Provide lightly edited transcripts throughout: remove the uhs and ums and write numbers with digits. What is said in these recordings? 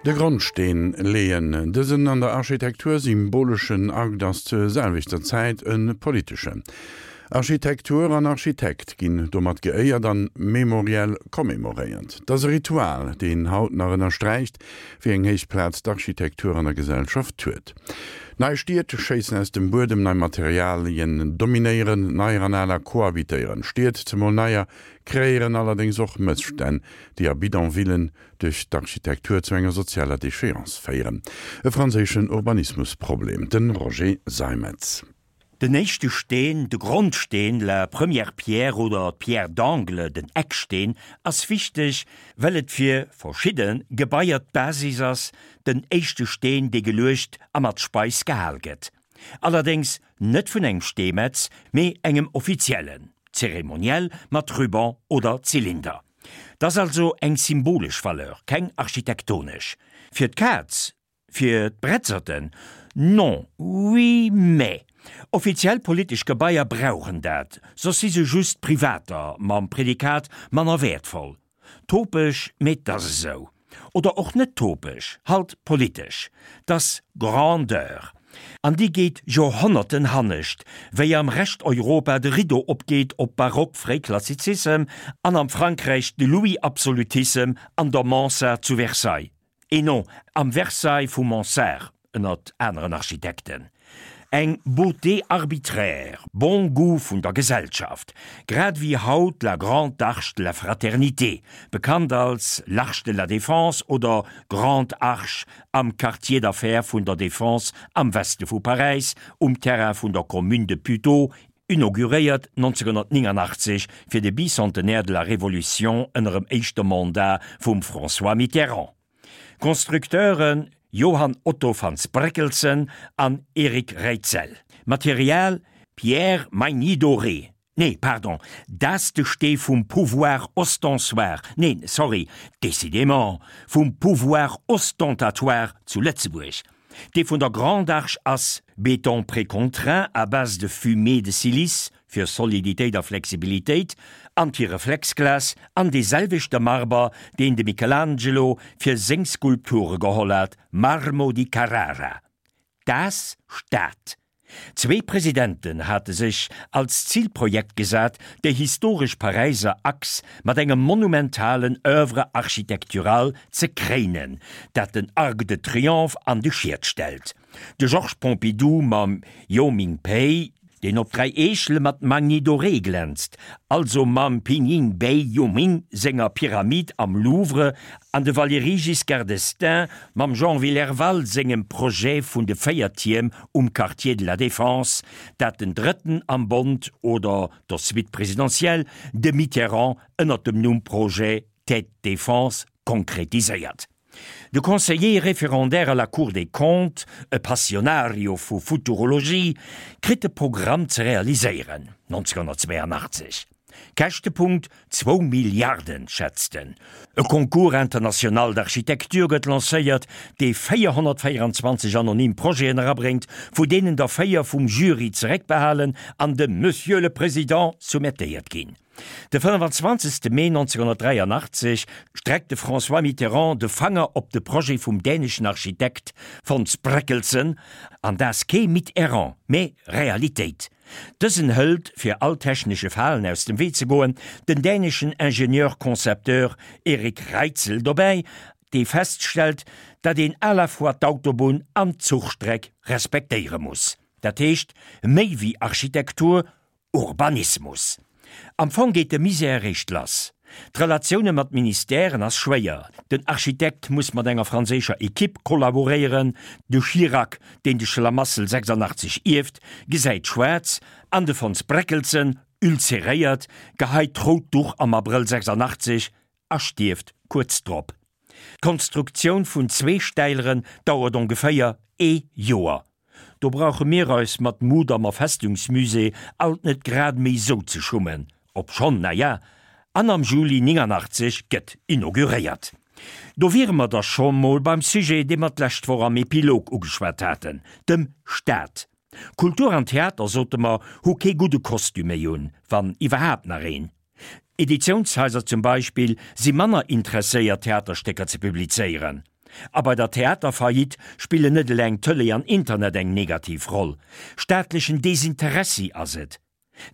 De Grondsteen leeën. Dësen an der Architektur symboleschen Akt ass zur selwechter Zäit e politeschen. Architektur an Architekt ginn domat geéiert an memoriell commemoréiert. 't ass e Ritual, deen haut nach ënnersträicht, wéi eng héich Plaz d'Architektur an der Gesellschaft huet. Nei Stied schéissen aus dem Buedem, nei Materialien dominéieren, neier an aler cohabitéieren. Stied, zemol neier, kreéieren allerdéngs och Mësstänn, déi a Bidonvillen duerch d'Architektur zu enger sozialer Déchéance féieren. E franséischen Urbanismusproblem, de Roger Seimetz. Den éischte Steen, de Grondsteen, la première pierre oder d'pierre d'angle, den Ecksteen, ass wichteg, well et fir verschidde Gebaier d'Basis ass, den éischte Steen, dee geluecht a mat Speis gehal gëtt. Allerdéngs net vun engem Steemetz, mee engem Offiziellen, zeremoniell mat Ruban oder Zylinder. 't ass also eng symbolesch Valeur, keng architektonesch. Fir d'Kaz, fir d'Bretzerten, non, oui, mais offiziell politesch Gebaier brauchen dat, soss si se just privater mam Prädikat manner wäertvoll. Topeg, mee 't ass esou. Oder och net topeg, halt politesch. 't ass Grandeur. An déi geet Joerhonnerten hannescht, wéi am Rescht Europa de Rideau opgeet op Barock-Fréiklassizissem an am Frankräich de Louis-Absolutissem an der Mansart zu Versailles, et non, am Versailles vum Mansart, ënnert aneren Architekten. Eng Beauté arbitraire, bon goût vun der Gesellschaft, grad ewéi haut la Grande Arche de la Fraternité, bekannt als l'Arche de la Défense oder Grande Arche am Quartier d'affaires vun der Défense am Weste vu Paräis, um Terrain vun der Commune de Puteaux, inauguréiert 1989 fir de Bicentenaire de la Révolution ënnerem éischte Mandat vum François Mitterrand. Constructeure Johann Otto van Spreckelsen an Eric Reitzel. Material Pierre Magny-Doré, Nee, pardon, dat de Stee vum Pouvoir ostensoir, neen, sorry, décidément, vum Pouvoir ostentatoire zu Lëtzebuerg. Dee vun der Grande Arche ass Béton précontraint à base de fumée de silice, fir Soliditéit a Flexibilitéit, Antireflexglas an dee selwechte Marber, deen de Michelangelo fir seng Skulpture geholl hat, Marmo di Carrara. Das Stad. Zwee Presidenten hate sech als Zilprojekt gesat, déi historesch Paräiser Achs mat engem monumentalen Oeuvre architecturale ze kréinen, dat den Arc de Triomphe an de Schiet stellt. De Georges Pompidou mam Yoh Ming Pei, deen op 3 Eechele mat Magny doré glänzt, also mam Pinyin Bei Yu Ming senger Pyramid am Louvre, an de Valéry Giscard d'Estaing mam Jean Willerval sengem Projet vun de 4 Tierm um Quartier de la Défense, dat den Drëtten am Bond oder der Suite présidentielle, de Mitterrand, ënnert dem Numm Projet Tête Défense konkretiséiert. De Conseiller référendaire à la Cour des Comptes, e Passionario vu Futurologie, kritt de Programm ze realiséieren, 1982. Käschtepunkt, zwou Milliarden, schätzt en. E Concours international d'architecture gëtt lancéiert, dee 424 anonym Projeten erabréngt, vu deenen der 4 vum Jury zeréckbehalen an dem Monsieur le Président soumettéiert ginn. De 25. Mee 1983 streckt de François Mitterrand de Fanger op de Projet vum däneschen Architekt Fons Brekkelsen, an dat kee Mitterrand, mee Realitéit. Dësen hëlt, fir all technesche Falen aus dem Wee ze goen, den däneschen Ingenieur-Concepteur Erik Reitzel dobäi, dee feststellt, datt een à la fois d'Autobunn an d'Zuchstreck respektéiere muss. Dat heescht, méi wéi Architektur, Urbanismus. Am Fong geet de Misär eréischt lass. D'Relatioune mat Ministèren ass schwéier, den Architekt muss mat enger franséischer Ekipp kollaboréieren, de Chirac, deen de Schlamassel 86 ierft, gesäit schwaarz an de Fons Breckelsen, ulceréiert, geheit d'rout Duch am Abrëll 86 a stierft kuerz drop. D'Konstruktioun vun zwee Stäileren dauert ongeféier ee Joer. Do brauche mir eis mat Mudammer Festungsmusée alt net grad méi sou ze schummen, obschonn, na ja, an am Juli 89 gëtt inauguréiert. Do wiere mer da scho mol beim Sujet, dee mer d'lescht Woch am Epilog ugeschwat haten, dem Staat. Kultur an Theater, sote mer, hu kee gudde Kostüm méi un, wann iwwerhaapt nach een. Editiounshaiser zum Beispill si manner interesséiert Theaterstécker ze publizéieren. A bei der Theaterfaillite spillen net eleng Tëlee an Internet eng negativ Roll. Staatlechen Desinteressi ass et.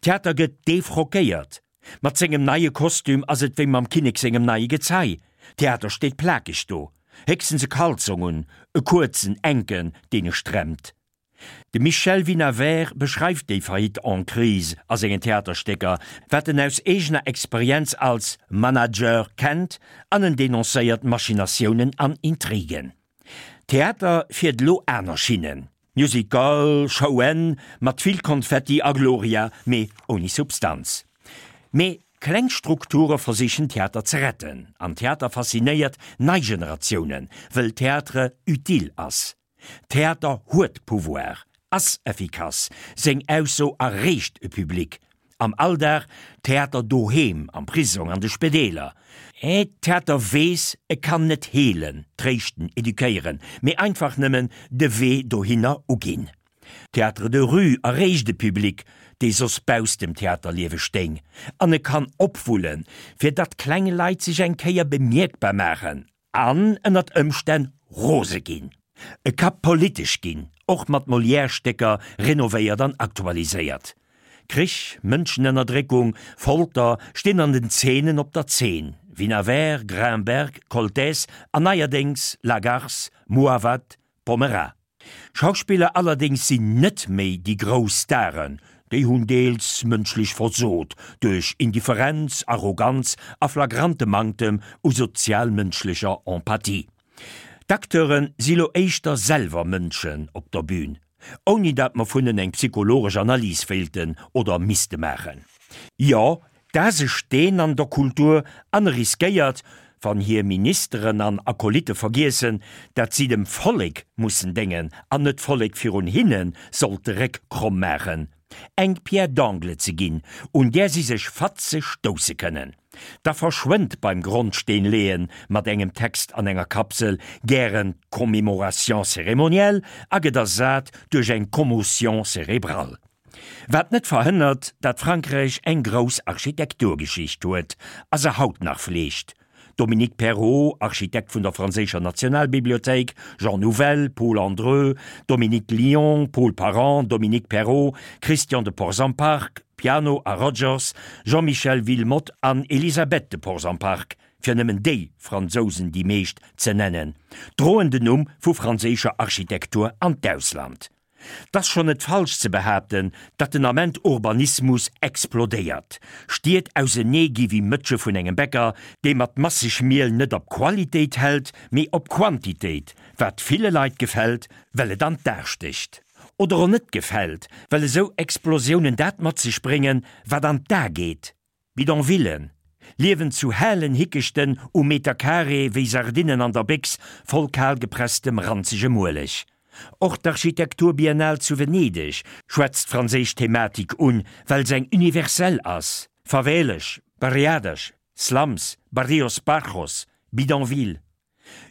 Theater gëtt defrockéiert. Mat sengem neie Kostüm ass et wéi mam Kinnek sengem neie Gezei. Theater steet plakeg do, héchstens e Kalzong un, e kuerzen, enken, deen e stremmt. De Michel Vinaver beschreift déi Faillite en crise a sengen Theaterstécker, wat en aus eegener Experienz als Manager kennt, an en denoncéiert Machinatiounen an Intrigen. Theater fiert elo aner Schinnen, Musical, Showen mat vill Konfetti a Gloria, mee ouni Substanz. Mee kleng Strukture versichen Theater ze retten, an Theater faszinéiert nei Generatiounen, wëll Théâtre utile ass. Theater huet Pouvoir, ass effikass, seng Ausso erreecht e Public. Am Alldag, Theater doheem, am Prisong, an de Spedeeler. Theater weess, e kann net heelen, tréischten, eduquéieren, mee einfach nëmmen de Wee dohinner uginn. Théâtre de rue erreecht e Public, dee soss bausst dem Theaterliewe stéing, an e kann opwullen, fir datt kleng Leit sech eng Kéier bemierkbar maachen An ënnert Ëmstänn rose ginn. E ka politesch ginn, och mat Molière-Stécker renovéiert an aktualiséiert. Krich, Mënschenënnerdréckung, Folter stinn an den Zeenen op der Zeen, Vinaver, Grinberg, Koltès an neierdéngs Lagarce, Mouawad, Pommerat. Schauspiller allerdéngs sinn net méi déi grouss Staren, déi hunn deels mënschlech versot duerch Indifferenz, Arroganz a flagrante Manktem u sozial-mënschlecher Empathie. D'Acteure si lo éischter selwer Mënschen op der Bühn, ouni dat mer vun en eng psychologesch Analys wéilten oder misste maachen. Jo, D'Aas e Steen an der Kultur an e riskéiert, wann hir Ministeren an Akolytte vergiessen, dat si dem Vollek mussen déngen an net d'Vollek virun hinne sollt de Réck kromm maachen, eng Pierre d'angle ze ginn, un där si sech fatzeg stousse kënnen. Da verschwënnt beim Grondsteen-leeën mat engem Text an enger Kapsel gären d'Commémoration cérémonielle a gëtt ersat duerch eng Commotion cérébrale. Wat net verhënnert, dat Frankräich eng grouss Architekturgeschicht huet a se haut nach fleegt, Dominique Perrault, Architekt vun der franséischer Nationalbibliothéik, Jean Nouvel, Paul Andreu, Dominique Lion, Paul Parent, Dominique Perrault, Christian de Portzamparc, Piano a Rogers, Jean-Michel Wilmotte an Elisabeth de Portzamparc, fir nëmmen déi Fransousen déi meescht ze nennen, droen den Numm vu franséischer Architektur an d'Ausland. 't ass schonn net falsch ze behaapten, datt den Ament Urbanismus explodéiert, Stied ausenee gi wéi Mëtsche vun engem Bäcker, dee mat masseg Miel net op Qualitéit hält, mee op Quantitéit, wat ville Leit gefält, well et an d'A stécht. Oder och net gefält, well esou Explosiounen dat mat sech bréngen, wat an d'A geet. Bidonvillen, liewen zu hellen Hickechten um Metercarré wéi Sardinnen an der Béchs voll kalgepresstem ranzegem Ueleg. Och d'Architekturbiennale zu Venedeg schwätzt d'franséisch Thematik un, well se eng universell ass, Favelas, Barriadas, Slums, Barrios Bajos, Bidonvilles.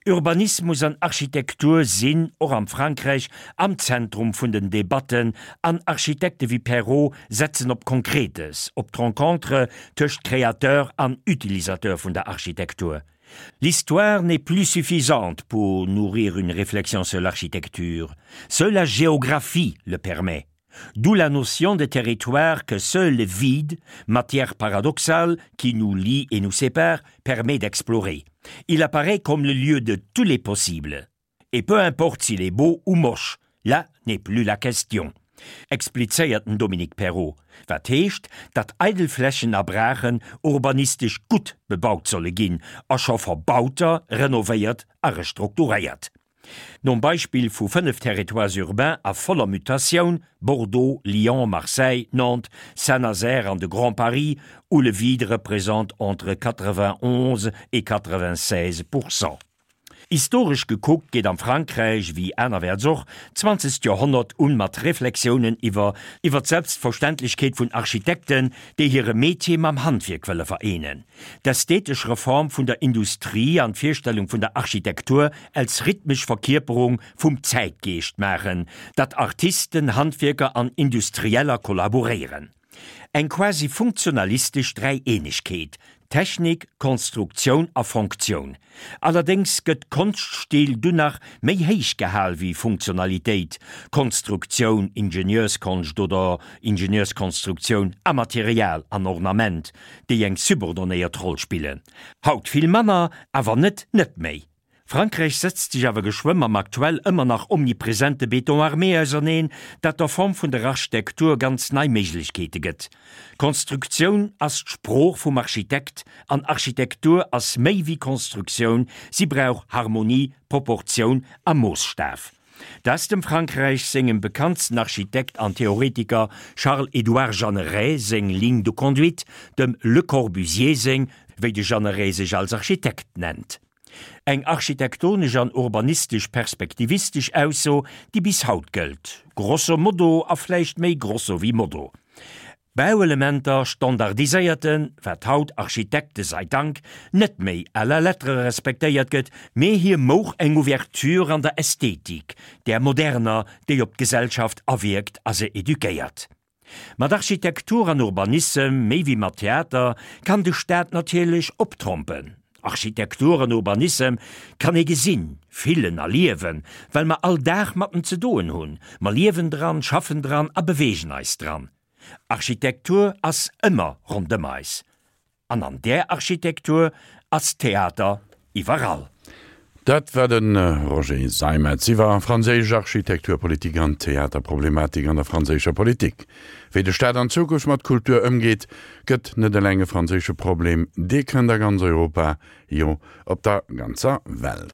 Urbanismus an Architektur sinn, och am Frankräich, am Zentrum vun den Debatten, an Architekte wéi Perrault setzen op Konkretes, op d'Rencontre tëscht Créateur an Utilisateur vun der Architektur. L'histoire n'est plus suffisante pour nourrir une réflexion sur l'architecture, seule la géographie le permet. D'où la notion de territoire que seul le vide, matière paradoxale qui nous lie et nous sépare, permet d'explorer. Il apparaît comme le lieu de tous les possibles. Et peu importe s'il est beau ou moche, là n'est plus la question. Explizéiert den Dominique Perrault, wat heescht, datt eidel Flächen a Braachen urbanistesch gutt bebaut solle ginn a scho verbauter renovéiert a restrukturéiert. Nom Beispill vu 5 Territoires urbains a voller Mutatioun, Bordeaux, Lyon, Marseille, Nantes, Saint-Nazaire an de Grand Paris, où le vide représente entre 91 et 96 pourcent. Historesch gekuckt geet am Frankräich, wéi anerwäerts och, d'zwanzegt Joerhonnert un mat Reflexiounen iwwer iwwer d'Selbstverständlechkeet vun Architekten, déi hire Metier mam Handwierk wëlle vereenen. D'ästhetesch Reform vun der Industrie an d'Virstellung vun der Architektur als rhythmesch Verkierperung vum Zäitgeescht maachen, datt Artisten, Handwierker an Industrieller kollaboréieren. Eng quasi funktionalistesch Dräieenegkeet. Technik, Konstruktioun a Fonktioun. Allerdéngs gëtt Konschtstil dunn nach méi héich gehal wéi Funktionalitéit, Konstruktioun, Ingenieurskonscht oder Ingenieurskonstruktioun a Material an Ornament, déi eng subordonéiert Roll spillen. Haut vill manner, awer net net méi. Frankräich setzt sech awer geschwë mam aktuell ëmmer nach omnipresente Béton armé auserneen, dat der Form vun der Architektur ganz nei Méiglechkeete gëtt. Konstruktioun ass d'Sprooch vum Architekt an Architektur ass méi wéi Konstruktioun, si brauch Harmonie, Proportioun a Moosstaf. Dat ass dem Frankräich sengem bekanntsten Architekt an Theoretiker Charles-Édouard Jeanneret seng Ligne de conduite, dem Le Corbusier seng, wéi de Jeanneret sech als Architekt nennt. Eng architektonesch an urbanistesch perspektivistesch Ausso, déi bis haut gëllt, grosso modo a vläicht méi grosso wéi modo. Bauelementer standardiséierten, wat haut, Architekte sei Dank, net méi à la lettre respektéiert gëtt, mee hie mouch eng Ouverture an der Ästhetik, där moderner, déi op d'Gesellschaft awierkt a se eduquéiert. Mat Architektur an Urbanissem, méi wéi mat Theater, kann de Staat natierlech optrompen. Architektur an Urbanissem kann ee gesinn, fillen a liewen, well mer all Dag mat en ze doen hunn. Mer liewen dran, schaffen dran a beweegen eis dran. Architektur ass ëmmer rondëm eis. An an där Architektur ass Theater iwwerall. Dat war de Roger Seimetz iwwer franséisch Architekturpolitik an Theaterproblematik an der franséischer Politik. Wéi de Staat an Zukunft mat Kultur ëmgeet, gëtt net eleng e franséische Problem, dee kënnt a ganz Europa, jo op der ganzer Welt.